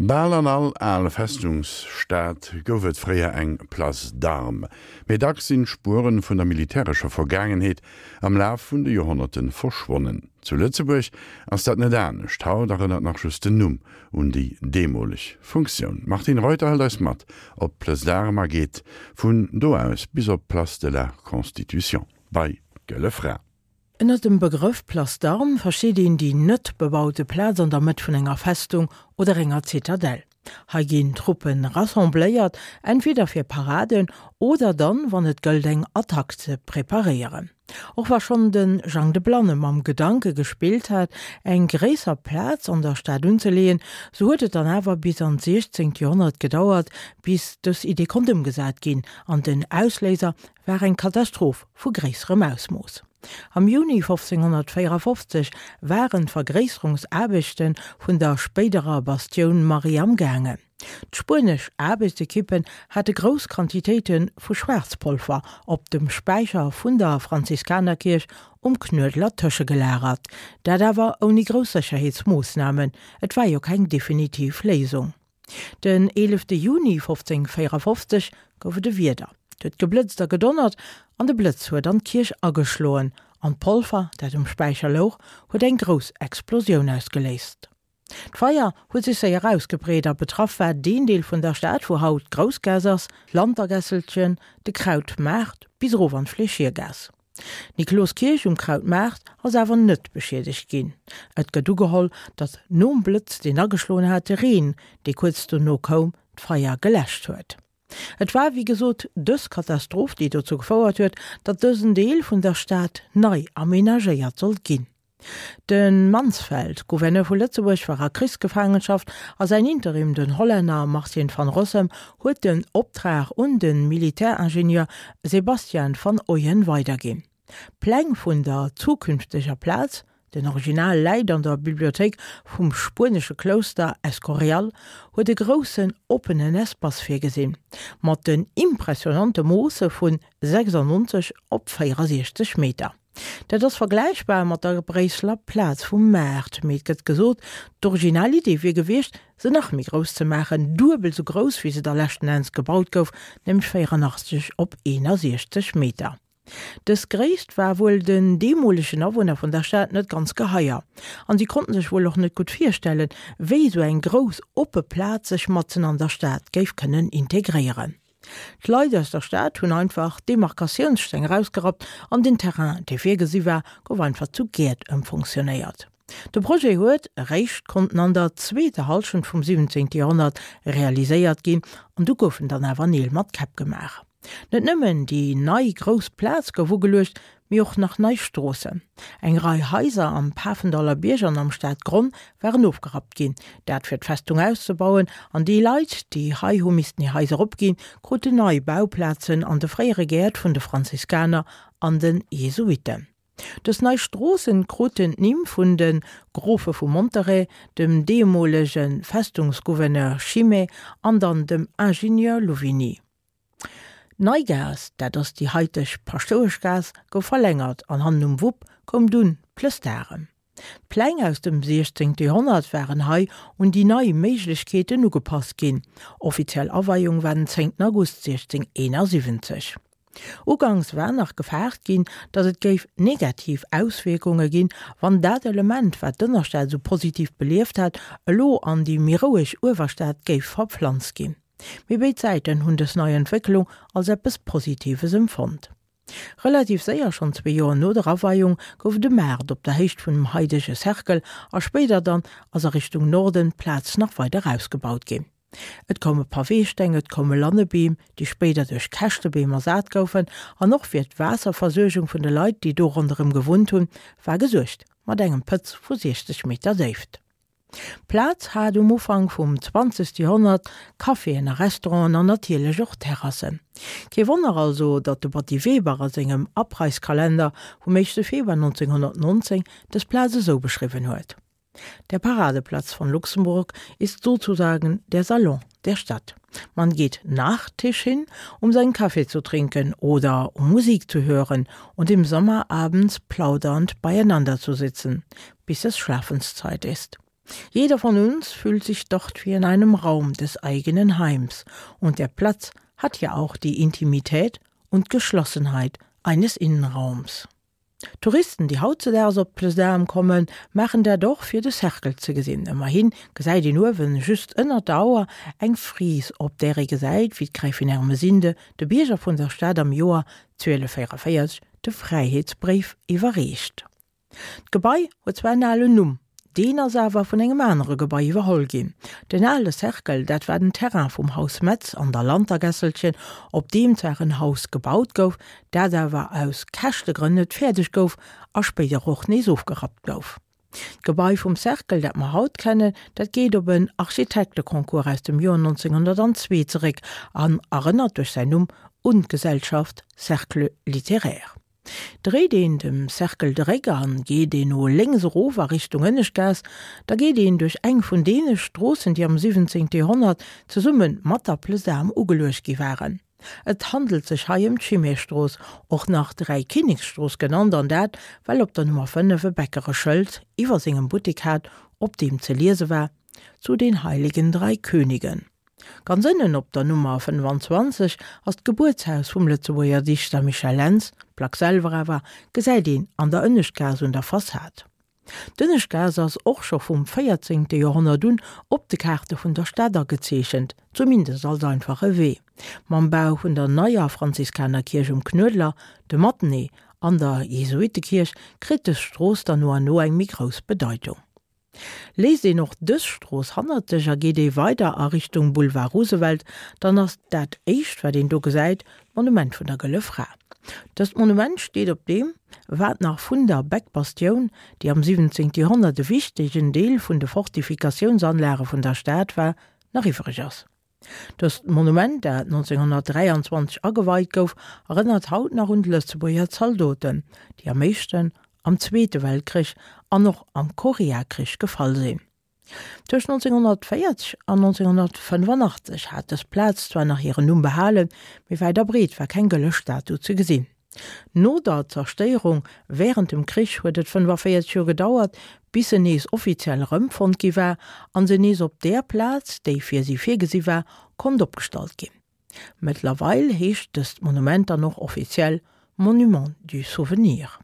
Bal an all al Festungsstad gouf et fréier eng Place d'Armes. Mee dacks sinn d'Spueren vun der militärescher Vergaangenheet am Laf vun de Joerhonnerte verschwonnen. Zu Lëtzebuerg ass dat net anescht. Haut erënnert nach just den Numm un déi deemoleg Funktioun. D'Martine Reuter hëlt eis mat op d'Place d'Armes a geet vun do aus bis op d'Place de la Constitution bei d'Gëlle Fra. Ënner dem Begrëff Place d'Armes versteet een déi net bebaute Plaz an der Mëtt vun enger Festung oder enger Zitadell. Hei ginn Truppe rassembléiert, entweder fir Paraden oder dann, wann et gëllt eng Attack ze preparéieren. Och wa schonn de Jang de Blanne mam Gedanke gespillt hat, eng gréisser Plaz an der Stad unzeleeën, sou huet et dann awer bis an d'siechzéngt Joerhonnert gedauert, bis dës Idee konnt ëmgesat ginn an den Ausléiser war eng Katastroph vu gréisserem Ausmooss. Am Juni 1554 waren d'Vergréisserungsaarbechte vun der spéiderer Bastioun Marie am gaangen. D'spuenesch Aarbechtsekippen hate grouss Quantitéite vu Schwaarzpolver op dem Späicher vun der Franziskanerkierch um Knuedler tëschegelagert, dat awer ouni grouss Sécherheetsmoossnamen, et war jo keng definitiv Léisung. Den 11 Juni 1554 gouf et e Wieder, et huet geblëtzt a gedonnert an de Blëtz huet an d'Kierch ageschloen an d'Polver, dat um Späicher louch, huet eng grouss Explosioun ausgeléist. D'Feier huet sech séier ausgebreet a betraff war deen Deel vun der Stad, wou haut d'Groussgaass ass, d'Lantergässelchen, de Krautmaart bis erof an d'Fleeschiergaass. D'Nikloskierch um Krautmaart ass awer net beschiedegt ginn. Et gëtt ugeholl, datt nom Blëtz, deen ageschloen hat, de Reen, dee kuerz dono koum, d'Feier geläscht huet. Et war wéi gesot dës Katastroph, déi dozou gefouert huet, datt dësen Deel vun der Stad nei amenagéiert sollt ginn. De Mansfeld, Gouverneur vu Lëtzebuerg, war a Krichsgefaangenschaft a säin Interim, den Hollänner Martin van Rossem, huet den Optrag un de Militäringenieur Sebastian van Oyen weiderginn. D'Pläng vun der zukünfteger Plaz, den Original läit an der Bibliothéik vum spuenesche Klouster Escorial, huet e groussen oppenen Espace virgesinn, mat den impressionante Moosse vun 96 op 64 Meter. Dat ass vergläichbar mat der Bréisseler Plaz vum Maart, mee et gëtt gesot, d'original Idee wier gewiescht, se nach méi grouss ze maachen, duebel sou grouss wéi se da leschten Enns gebaut gouf, nämlech 84 op 61 Meter. Dës Gréisst war wuel den deemolegen Awunner vun der Stad net ganz geheier, an si konnten sech wuel och net gutt virstellen, wéi sou eng grouss oppe Plaz sech matzen an der Stad géif kënnen integréieren. D'Leit aus der Stad hunn einfach d'Demarkatiounssteng erausgerappt an den Terrain, dee virgesi war, gouf einfach zu Gäert ëmfonctionnéiert. De Projet huet eréischt konnten an der zweeter Hallschent vum 17. Joerhonnert realiséiert ginn an du goufen dann awer Neel mat Käpp gemaach. Net nëmmen déi nei grouss Plaz gouf ugeluecht, mee och nach nei Stroossen. Eng Rei Haiser am Pafendaller Bierg an am Stadgronn waren ofgerappt ginn, dat fir d'Festung auszebauen, an déi Leit, déi hei hu missten hir Haiser opginn, kruten nei Bauplazen an de fréiere Gäert vun de Franziskaner an de Jesuitten. Dës nei Stroossen kruten d'Nimm vun de Grofe vu Monterey, dem deemolege Festungsgouverneur Chimay an dann dem Ingenieur Louvigny. D'Neigaass, dat ass déi haiteg Paschtoueschgaass, gouf verlängert an hannen um Wupp koum dunn d'Plëss d'Arem. D'Pläng aus dem 16. Joerhonnert waren hei un déi nei Méiglechkeeten ugepasst ginn. Offiziell Aweiung war den 10. August 1671. Uganks war nach gefaart ginn, datt et géif negativ Auswierkunge ginn, wann dat Element, wat d'Ënnerstad esou positiv belieft hat, elo an déi méi roueg Uewerstad géif verpflanzt ginn. Mee béid Säiten hunn dës nei Entwécklung als eppes Positives empfonnt. Relativ séier, schonn zwee Joer no der Aweiung, gouf et e Maart op der Héicht vun dem haidege Cercle a spéider dann ass a Richtung Norden d'Plaz nach weider ausgebaut ginn. Et koume Paweesteng, et koume Lannebeem, déi spéider duerch Käschtebeem ersat goufen an och fir d'Waasserversuergung vun de Leit, déi do ronderëm gewunnt hunn, war gesuergt mat engem Pëtz vu 60 Meter Déift. D'Plaz hat um Ufank vum 20. Joerhonnert Caféen a Restauranten an natierlech och Terrassen. Kee Wonner also, datt de Batty Weber a sengem Abreißkalender vum éischte Februar 1919 dës Plaz esou beschriwwen huet, Der Paradeplatz von Luxemburg ist sozusagen der Salon der Stadt. Man geht nach Tisch hin, um seinen Kaffee zu trinken oder um Musik zu hören und im Sommer abends plaudernd beieinander zu sitzen, bis es Schlafenszeit ist. Jeder von uns fühlt sich dort wie in einem Raum des eigenen Heims und der Platz hat ja auch die Intimität und Geschlossenheit eines Innenraums. Touristen, déi hautzedaags op d'Place d'Armes kommen, maachen dat och, fir de Cercle ze gesinn. Ëmmerhi gesäit een uewen, just ënnert der Auer, eng Fris, op där ee gesäit, wéi d'Gräfin Ermesinde de Bierger vun der Stad am Joer 1244 de Fräiheetsbréif iwwerreecht. D'Gebai huet zwar en alen Numm, deen ass awer vun engem anere Gebai iwwerholl ginn. Den ale Cercle, dat war den Terrain vum Haus Metz an der Lantergässelchen, op deem zwar en Haus gebaut gouf, dat awer aus Käschtegrënn net fäerdeg gouf a spéider och nees ofgerappt gouf. D'Gebai vum Cercle, dat mer haut kennen, dat geet op en Architekteconcours aus dem Joer 1902 zeréck an erënnert duerch säin Numm un d'Gesellschaft Cercle littéraire. Dréit een dem Cercle de Réck an geet een no lénks erof a Richtung Ënneschtgaass, da geet een duerch eng vun deene Stroossen, déi am 17. Joerhonnert zesumme mat der Plesam ugeluecht gi waren. Et handelt sech hei ëm d'Chimay-Strooss, och nach Dräikinneksstrooss genannt, an dat, well op der Nummer 5 e Bäcker e Schëld iwwer sengem Buttek hat, op deem ze liese war, Zu den Heiligen Drei Königen. Ganz ënnen op der Nummer 25 ass d'Gebuertshaus vum Lëtzebuerger Dichter Michel Lentz, d'Plack selwer awer gesäit een an der Ënneschtgaass un der Fassad. D'Ënneschtgaass ass och scho vum 14. Joerhonnert un op de Kaarte vun der Stad agezeechent, zumindest als einfache Wee. Mam Bau vun der neier Franziskanerkierch um Knuedler, dem Matenee an der Jesuittekierch kritt dës Strooss dann no an no eng méi grouss Bedeitung. Léisst een och dës Strooss hannert sech a geet ee weider a Richtung Boulevard Roosevelt, dann ass dat éischt wat een do gesäit d'Monument vun der Gëlle Fra. Dëst Monument steet op deem, wat nach vun der Beck-Bastioun, déi am 17. Joerhonnert e wichtegen Deel vun de Fortifikatiounsanlage vun der Stad war, nach iwwreg ass. Dëst Monument, dat 1923 ageweit gouf, erënnert haut nach un d'Lëtzebuerger Zaldoten, déi am éischten, am Zweete Weltkrich an och am Koreakrich gefall sinn. Tëscht 1940 an 1985 hat dës Plaz zwar nach hiren Numm behalen, mee wäit a breet war keng gëlle Statu ze gesinn. No der Zerstéierung wärend dem Krich huet et 45 Joer gedauert, bis se nees offiziell erëmfonnt gi war an se nees op där Plaz, déi fir si virgesi war, konnt opgestallt ginn. Mëttlerweil heescht dëst Monument dann och offiziell Monument du Souvenir.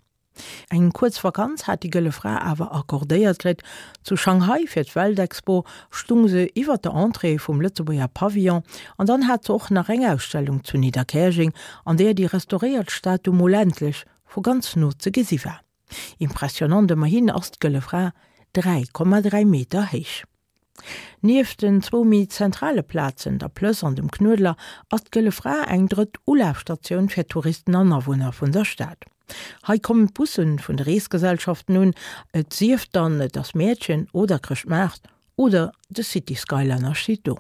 Eng kuerz Vakanz hat déi Gëlle Fra awer accordéiert kritt. Zu Shanghai fir d'Weltexpo stung se iwwer der Entrée vum Lëtzebuerger Pavillon an dann hat se och nach eng Ausstellung zu Nidderkäerjeng, an där déi restauréiert Statu mol endlech vu ganz no ze gesi war. Impressionant, ëmmerhin ass d'Gëlle Fra 3,3 Meter héich. Nieft den zwou méi zentrale Plazen, der Plëss an dem Knuedler, ass d'Gëlle Fra eng drëtt Ulafstatioun fir Touristen an Awunner vun der Stad. Hei kommen d'Busse vun de Reesgesellschaften un, et sief dann et ass Mäertchen oder Chrëschtmaart oder de City Skyliner steet do.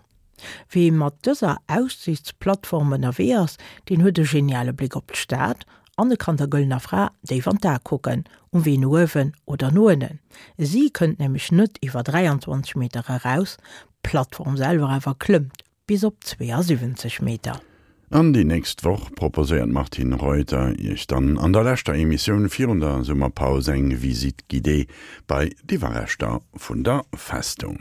Wee mat dëser Aussichtsplattform ënnerwee ass, deen huet e geniale Bléck op d'Stad an e kann der Gëllener Fra déif an d'A kucken, um Wee no uewen oder no ënnen. Si kënnt nämlech net iwwer 23 Meter eraus, d'Plattform selwer awer klëmmt bis op 72 Meter. An déi nächst Woch proposéiert d'Martine Reuter Iech dann an der leschter Emissioun virun der Summerpaus eng Visite guidée bei d'Iwwerreschter vun der Festung.